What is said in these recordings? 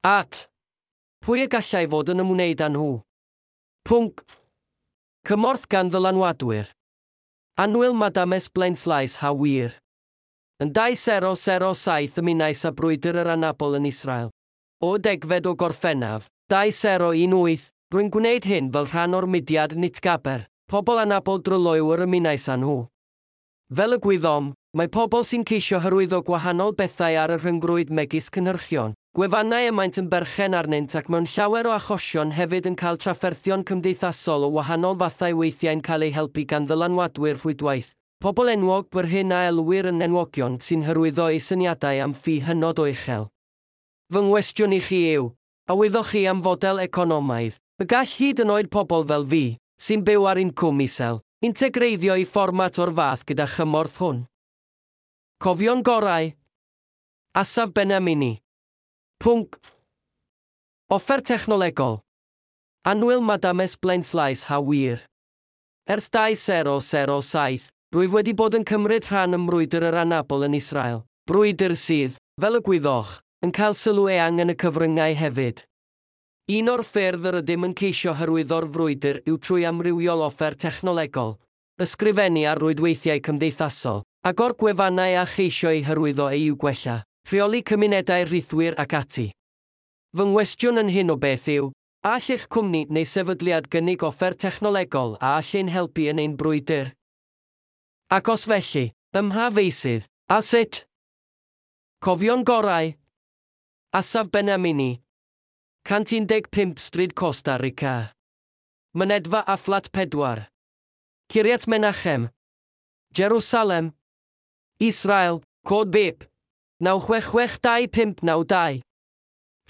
At. Pwy y gallai fod yn ymwneud â nhw? Pwnc. Cymorth gan ddylanwadwyr. Annwyl Madames Blaenslaes ha wir. Yn 2007 ymunais â brwydr yr anabl yn Israel. O 10fed o Gorffennaf, 2018, rwy'n gwneud hyn fel rhan o'r mudiad Nitgaber, pobl anabl dryloyw yr ymunais â nhw. Fel y gwyddom, mae pobl sy'n ceisio hyrwyddo gwahanol bethau ar y rhyngrwyd megis cynhyrchion, gwefannau y maent yn berchen arnynt ac mewn llawer o achosion hefyd yn cael trafferthion cymdeithasol o wahanol fathau weithiau'n cael eu helpu gan ddylanwadwyr rhwydwaith, pobl enwog yr hyn a elwir yn enwogion sy'n hyrwyddo eu syniadau am ffi hynod o uchel. Fy nghwestiwn i chi yw, a wyddoch chi am fodel economaidd, y gall hyd yn oed pobl fel fi, sy'n byw ar incwm isel, integreiddio i fformat o'r fath gyda chymorth hwn? Cofion gorau. Asaf Benamini. Pwnc. Offer technolegol. Annwyl Madames Blaenslaes ha wir. Ers 2007, rwyf wedi bod yn cymryd rhan ym mrwydr yr anabl yn Israel. Brwydr sydd, fel y gwyddoch, yn cael sylw eang yn y cyfryngau hefyd. Un o'r ffyrdd yr ydym yn ceisio hyrwyddo'r frwydr yw trwy amrywiol offer technolegol, ysgrifennu ar rwydweithiau cymdeithasol, agor gwefannau a cheisio eu hyrwyddo eu gwella, rheoli cymunedau rhithwir ac ati. Fy nghwestiwn yn hyn o beth yw, a all eich cwmni neu sefydliad gynnig offer technolegol a all ein helpu yn ein brwydr? Ac os felly, ym mha feysydd, a sut? Cofion gorau. Asaf Benamini. 115 Stryd Costa Rica. Mynedfa a Fflat 4. Kiryat Menachem. Jerusalem. Israel, cod BIP. 9662592.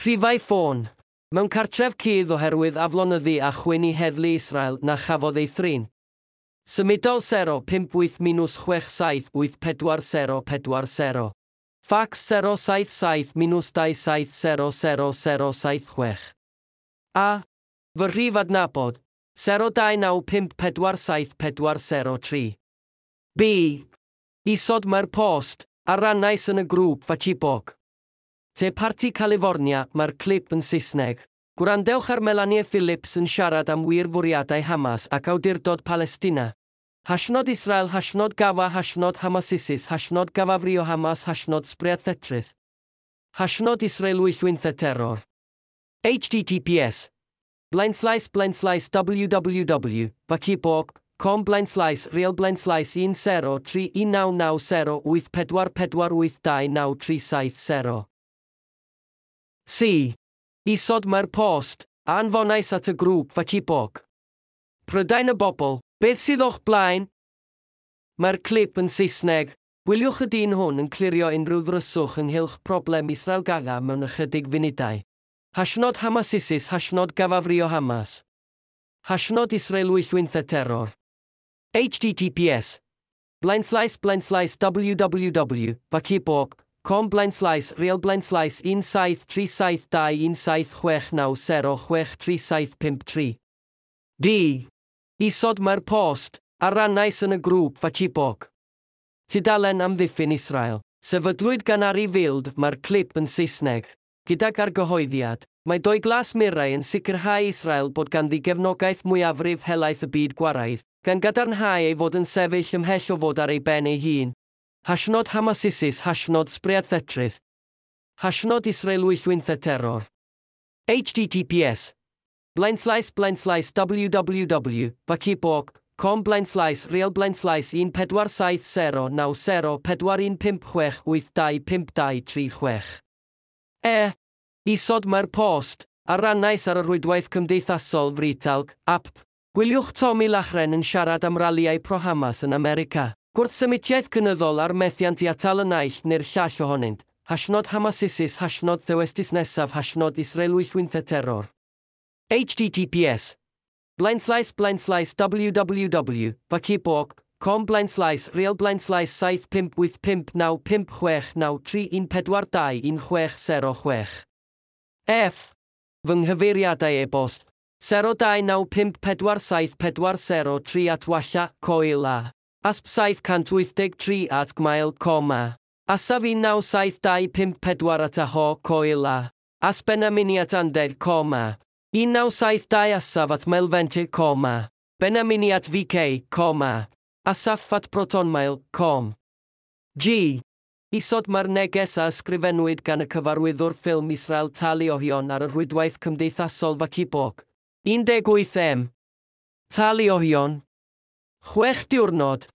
Rhifau ffôn. Mewn cartref cudd oherwydd aflonyddu a chwyn i heddlu Israel na chafodd ei thrin. Symudol 058 678 4040. Fax 077 2700076. A. Fy rhif adnabod, 029547403. B. Isod mae'r post, a rannais yn y grŵp Facebook. Te Parti California, mae'r clip yn Saesneg. Gwrandewch ar Melanie Phillips yn siarad am wir fwriadau Hamas ac awdurdod Palestina. Hashnod Israel, hashnod Gafa, hashnod Hamasisis, hashnod Gafafrio Hamas, hashnod Spread Thetrydd. Hashnod Israel wyllwynthe terror. HTTPS Blaenslaes blaenslaes www, Facebook, com blaenslaes real blaenslaes 1031990 8448293 70. C. Isod mae'r post, a anfonais at y grŵp Facebook. Prydain y bobl, beth sydd o'ch blaen? Mae'r clip yn Saesneg. Gwyliwch y dyn hwn yn clirio unrhyw ddryswch ynghylch problem Israel Gaza mewn ychydig funudau. Hashnod Hamasisis, hashnod Gafafrio Hamas. Hashnod Israel wyllwynthe terror. HTTPS Blaenslaes blaenslaes www, Facebook, com blaenslaes real blaenslaes 173721769 063753. D. Isod mae'r post, a rannais yn y grŵp Facebook. Tudalen amddiffyn Israel. Sefydlwyd gan Ari Field, mae'r clip yn Saesneg. Gydag argyhoeddiad, mae doi glas murau yn sicrhau Israel bod ganddi gefnogaeth mwyafrif helaeth y byd gwaraidd, gan gadarnhau ei fod yn sefyll ymhell o fod ar ei ben ei hun. Hashnod Hamasisis, hashnod Spread Thetrydd. Hashnod Israel wyllwynthe terror. HTTPS Blaenslaes blaenslaes www, Facebook, com blaenslaes real blaenslaes 14709 4156 825236. E. Isod mae'r post, a rannais ar y rhwydwaith cymdeithasol Fritalg, app. Gwyliwch Tommy Lachren yn siarad am ralïau pro-Hamas yn America. Gwrthsymitiaeth cynyddol a'r methiant i atal y naill neu'r llall ohonynt. Hashnod Hamasisis, hashnod Thewestis nesaf, hashnod Israel wyllwynthe terror. HTTPS Blaenslaes blaenslaes www, Facebook, com blaenslaes real blaenslaes 75859569314 21606. F. Fy nghyfeiriadau e-bost 029547403 at walla, coel a. Asp 783 at gmail, coma. Asaf 19725 at aho, coel a. Asbenaminiat andeg coma. 1972 asaf at mailvente coma. Benaminiat VK, coma. Asaf at protonmail.com. G. Isod mae'r neges a ysgrifennwyd gan y cyfarwyddwr ffilm Israel Tali Ohion ar y rhwydwaith cymdeithasol Facebook. 18M. Tali Ohion. 6 diwrnod.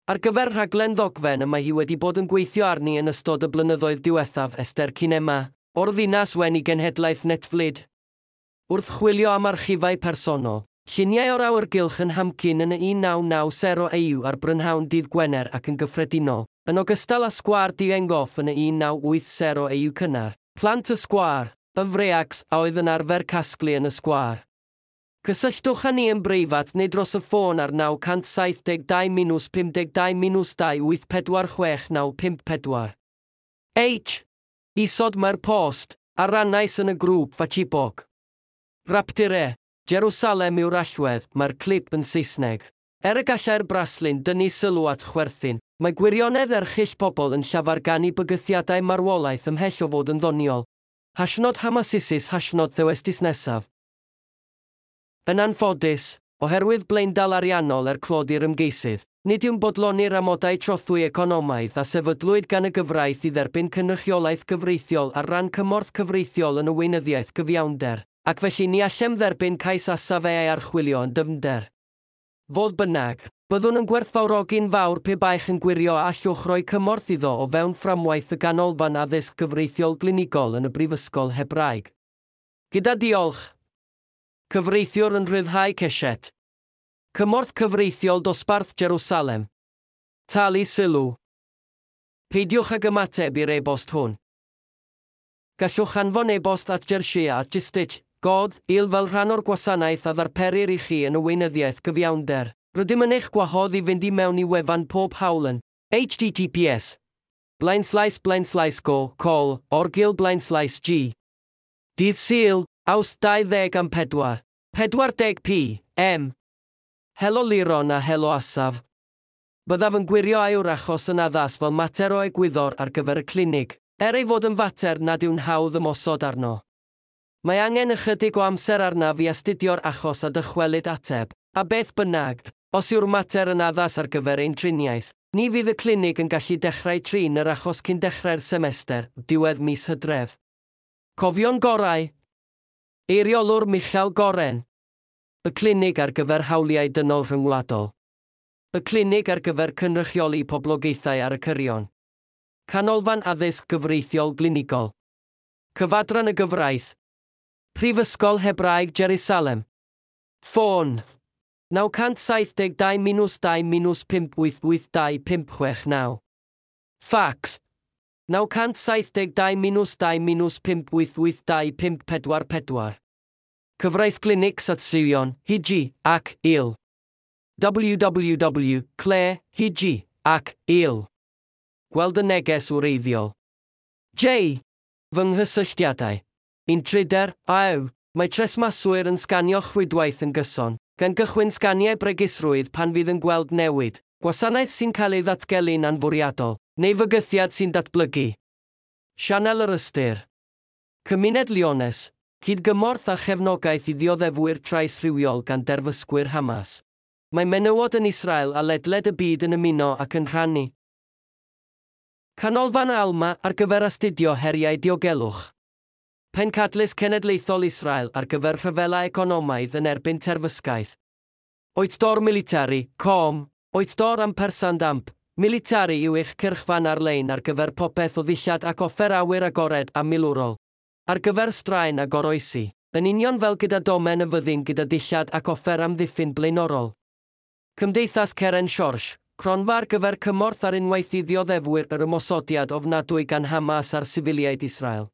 Ar gyfer rhaglen ddogfen y mae hi wedi bod yn gweithio arni yn ystod y blynyddoedd diwethaf Esther Cinema, o'r ddinas wen i genhedlaeth Netflix. Wrth chwilio am archifau personol, lluniau o'r awyrgylch yn Hamkin yn y 1990 EU ar brynhawn dydd Gwener ac yn gyffredinol, yn ogystal â sgwâr Dizengoff yn y 1980 EU cynnar, plant y sgwâr, y freaks a oedd yn arfer casglu yn y sgwâr. Cysylltwch â ni yn breifat neu dros y ffôn ar 972 52 284 6954. H. Isod mae'r post, a rannais yn y grŵp Facebook. Rapture, Jerusalem yw'r allwedd, mae'r clip yn Saesneg. Er y gallai'r braslun dynnu sylw at chwerthin, mae gwirionedd erchyll pobl yn llafarganu bygythiadau marwolaeth ymhell o fod yn ddoniol. Hashnod Hamasisis hashnod Thewestis nesaf. Yn anffodus, oherwydd blaendal ariannol er clod i'r ymgeisydd, nid yw'n bodloni'r amodau trothwy economaidd a sefydlwyd gan y gyfraith i dderbyn cynrychiolaeth gyfreithiol ar ran cymorth cyfreithiol yn y weinyddiaeth gyfiawnder, ac felly ni allem dderbyn cais Asaf ei archwilio yn dyfnder. Fodd bynnag, byddwn yn gwerthfawrogi'n fawr pe baech yn gwirio a allwch roi cymorth iddo o fewn fframwaith y Ganolfan Addysg Gyfreithiol Glinigol yn y Brifysgol Hebraeg. Gyda diolch. Cyfreithiwr yn rhyddhau Keshet. Cymorth cyfreithiol dosbarth Jerusalem. Talu sylw. Peidiwch ag ymateb i'r e-bost hwn. Gallwch anfon e-bost at Jersia at Justich, God, il fel rhan o'r gwasanaeth a ddarperir i chi yn y weinyddiaeth gyfiawnder. Rydym yn eich gwahodd i fynd i mewn i wefan pob hawl yn https //go col orgil /g. Dydd Sul, Awst 24, 40 p. M. Helo Liron a helo Asaf. Byddaf yn gwirio a yw'r achos yn addas fel mater o egwyddor ar gyfer y clinig, er ei fod yn fater nad yw'n hawdd ymosod arno. Mae angen ychydig o amser arnaf i astudio'r achos a dychwelyd ateb, a beth bynnag, os yw'r mater yn addas ar gyfer ein triniaeth, ni fydd y clinig yn gallu dechrau trin yr achos cyn dechrau'r semester, diwedd mis Hydref. Cofion gorau. Eiriolwr Michael Goren. Y clinig ar gyfer hawliau dynol rhyngwladol. Y clinig ar gyfer cynrychioli poblogaethau ar y cyrion. Canolfan Addysg Gyfreithiol Glinigol. Cyfadran y Gyfraith. Prifysgol Hebraeg Jerusalem. Ffôn 972 2 588 2569. Fax 972 2 588 2544. Cyfraith Clinics at Sion, Hiji, ac Il. www, Claire, Hiji, ac Il. Gweld y neges wreiddiol. J. Fy nghysylltiadau. Un tryder, AW, mae tresmaswyr yn sganio rhwydwaith yn gyson, gan gychwyn sganiau bregusrwydd pan fydd yn gweld newid, gwasanaeth sy'n cael ei ddatgelu'n anfwriadol, neu fygythiad sy'n datblygu. Sianel yr Ystyr. Cymuned Liones, cydgymorth a chefnogaeth i ddioddefwyr trais rhywiol gan derfysgwyr Hamas. Mae menywod yn Israel a ledled y byd yn ymuno ac yn rhannu. Canolfan Alma ar gyfer astudio heriau diogelwch. Pencadlys Cenedlaethol Israel ar gyfer rhyfela economaidd yn erbyn terfysgaeth. Oetdor Military, com, Oetdor ampersand amp, Military yw eich cyrchfan ar-lein ar gyfer popeth o ddillad ac offer awyr agored a milwrol. Ar gyfer straen a goroesi, yn union fel gyda domen y fyddin gyda dillad ac offer amddiffyn blaenorol. Cymdeithas Ceren Siorsh, cronfa ar gyfer cymorth ar unwaith i ddioddefwyr yr ymosodiad ofnadwy gan Hamas ar sifiliaid Israel.